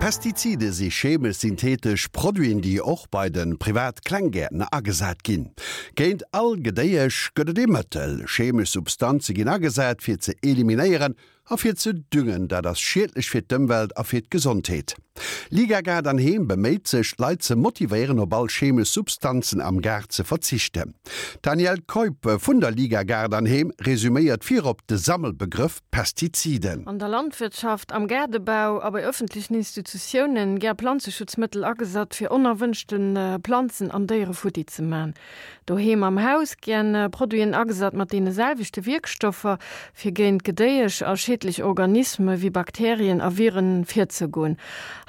Pestizide si chemesch-synthetesch Produiten, déi och bei de privat Klenggäertner agesat ginn. Géint all Gedéiesch gëtt et ee Mëttel. Chemesch Substanze ginn agesat, fir ze eliminéieren a fir ze düngen. Dat ass schiedlech fir d'Ëmwelt a fir d'Gesondheet. Liga Gaart an Heem beméit sech, d'Leit ze motivéieren, op all chemesch Substanzen am Gaart ze verzichten. D'Danièle Keup vun der Liga Gaart an Heem resuméiert virop de Sammelbegrëff Pestiziden. An der Landwirtschaft, am Gaardebau a bei ëffentlechen Institutiounen gär Planzeschutzmëttel agesat, fir onerwënschte Planzen an Déiere futti ze man. Doheem am Haus gär Produiten agesat mat deene selwechte Wierkstoffer, fir géint Gedéiesch a schiedlech Organisme wéi Bakterien a Viren virzegoen.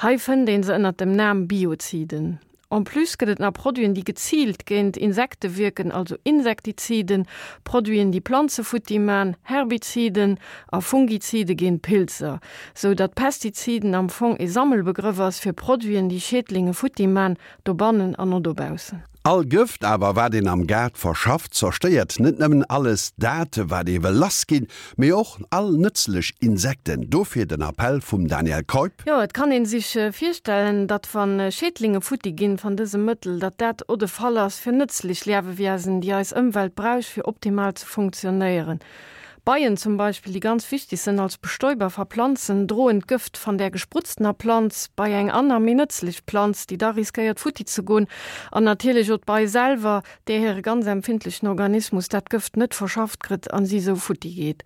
Hei fënnt een se ënnert dem Nam Bioziden. En plus gëtt et nach Produiten, déi geziilt géint Insekte wierken, also Insektiziden, Produiten, déi Planze futti man, Herbiziden, a Fungizide géint Pilzer, sou datt Pestiziden am Fong ee Sammelbegrëff ass fir Produiten, déi Schädlinge futti man, dobannen an o dobaussen. All Gëft awer, wat een am Gaart verschafft, zerstéiert net nëmmen alles dat, wat ee wëll lassginn, mee och all nëtzlech Insekten. Dofir den Appell vum Daniel Keup. Jo, et kann een sich virstellen, datt wann Schädlinge futti ginn van dësem Mëttel, datt dat o de Fall ass fir nëtzlich Liawewiesen, déi eis Ëmwelt brausch fir optimal ze funktionéieren. Beien zum Beispill, déi ganz wichtig sënn als Bestäuber va Planzen, droen d'Gëft van där gesprutzener Planz bei eng anner, méi nëtzlich Planz, déi da riskéiert futti ze gon, an natierlich o d'Bei selwer, där hire ganz empfindlichen Organismus dat Gëft net verschafft krëtt an si sou futti geet.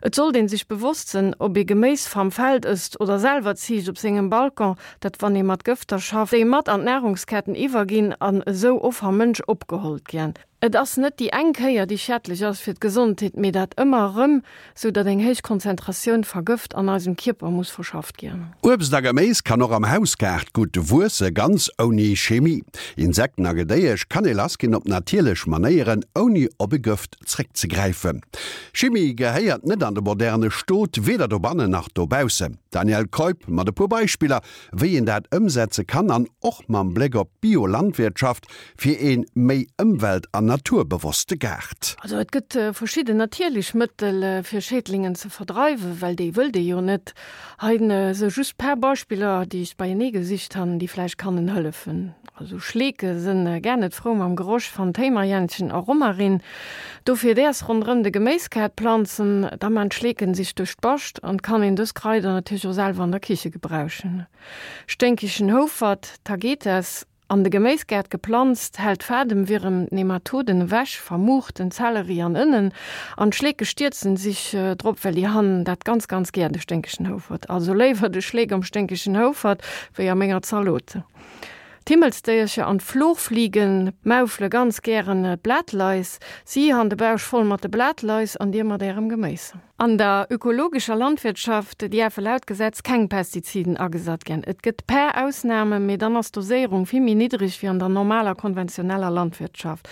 Et sollt een sich bewosst sënn, ob ee Geméis vam Feld ësst oder selwer ziicht op sengem Balcon, dat wann ee mat Gëfter schafft, déi mat an d'Nahrungsketten iwwerginn an esou o vam Mënsch opgehollt giän. Et ass net déi eng Kéier, déi schädlech ass fir d'Gesondheet, mee dat ëmmer erëm, sou datt eng héich Konzentratioun va Gëft an eisem Kierper muss verschafft ginn. Uebst a Geméis kann och am Hausgaart gutt wuesse, ganz ouni Chemie. Insekten a Gedéiesch kann ee lassginn op natierlech Manéieren, ouni op e Gëft zréckzegräifen. Chimie gehéiert net an de moderne Stot, weder dobannen nach dobaussen. Danièle Keup mat e puer Beispiller, wéi een dat ëmsetze kann an och mam Bléck op d'Biolandwirtschaft, Fir een méi ëmwelt an naturbewosste Gaart. Also et gëtt verschidden natierlech Mëttel fir Schädlingen ze verdreiwen, well déi wëllt ee jo net. Hei sou just paar Beispiller déi ech beienee gesicht han, déi vläicht kannen hëllefen. Also Schleeke sënn gar net frou mam Geroch van Téimerjännchen a Romarin. Dofir däers ronderëm de Geméiskaart planzen, da man d'Schleeken sich duerch d'Bascht an kann een dës Kraider natierlech och selwer an der Kiche gebrauchen. Sténkegen Houfert, Tagetes, An de Geméisgaart geplanzt, hält d'Fademwierem d'Nematoden ewech, vermuucht den Zelleri an Ënnen, an d'Schleeke stierzen sich drop, well déi han dat ganz ganz gär, de sténkegen Houfert. Also léiwer de Schleek am sténkegen Houfert, wéi a menger Zalot. D'Himmelsdéiercher an d'Florfliegen maufele ganz gären d'Blatlais. Si han de Bausch voll mat de Blatlais an dir mat ärem Geméis. An der ökologescher Landwirtschaft dierfe laut Gesetz keng Pestiziden agesat ginn. Et gëtt per Ausnamen, mee dann ass d'Doséierung vill méi niddreg wéi an der normaler konventioneller Landwirtschaft.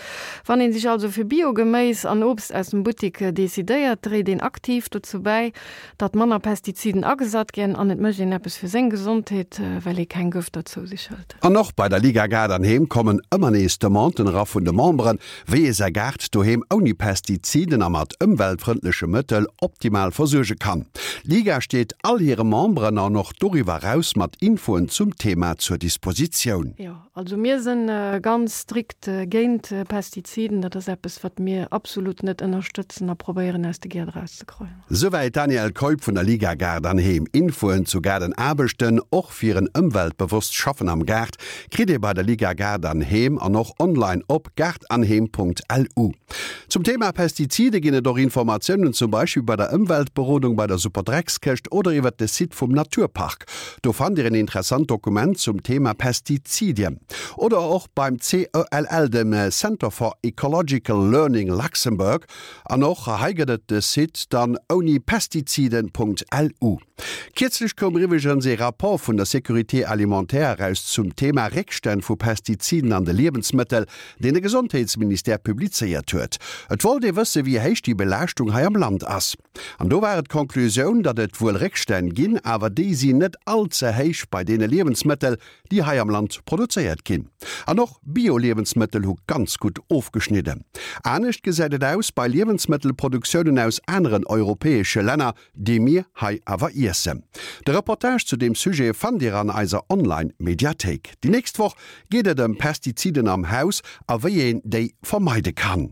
Wann een sech also fir Bio-Geméis an Obst aus dem Buttik decidéiert, dréit een aktiv dozou bäi, datt manner Pestiziden agesat ginn an et mécht een eppes fir seng Gesondheet, well ee keng Gëfter zou sech hëlt. An och bei der Liga Gaart an Heem kommen ëmmer nees Demanden era vun de Memberen, Wéi ee säi Gaart doheem ouni Pestiziden a mat ëmweltfrëndleche Mëttel optimal versuerge kann. D'Liga steet all hire Memberen an och doriwwer eraus mat Infoen zum Thema zur Dispositioun. Jo, also mir sënn ganz strikt géint Pestiziden. Dat ass eppes, wat mir absolut net ënnerstëtzen a probéieren aus de Gäert erauszekreien. Souwäit d'Danièle Keup vun der Liga Gaart an Heem. Infoen zu Gaardenaarbechten, och fir en ëmweltbewosst Schaffen am Gaart, kritt ee bei der Liga Gaart an Heem an och online op gaartanheem.lu. Zum Thema Pestizide ginn et och Informatiounen, zum Beispill bei der Ëmweltberodung, bei der Superdreckskëscht oder iwwert de Site vum Naturpark. Do fannt Dir en interessant Dokument zum Thema Pestizidien. Oder och beim CELL, dem Center for Ecological Learning Luxembourg. An och hei gëtt et de Site dann ounipestiziden.lu. Kierzlech koum eriwweregens ee Rapport vun der Sécurité alimentaire eraus zum Thema Réckstänn vu Pestiziden an de Liewensmëttel, deen de Gesondheetsministère publizéiert huet. Et wollt ee wësse wéi héich déi Belaaschtung hei am Land ass. An do war et d'Konklusioun, datt et wuel Réckstänn ginn, awer déi sinn net all ze héich bei deene Liewensmëttel, déi hei am Land produzéiert ginn. An och Bio-Liewensmëttel hu ganz gutt ofgeschnidden. Anescht gesäit et aus bei Liewensmëttelproduktiounen aus aneren europäesche Länner, déi mir hei awer iessen. De Reportage zu deem Sujet fannt Dir an eiser Online-Mediathéik. Déi nächst Woch geet et ëm Pestiziden am Haus a wéi een déi vermeide kann.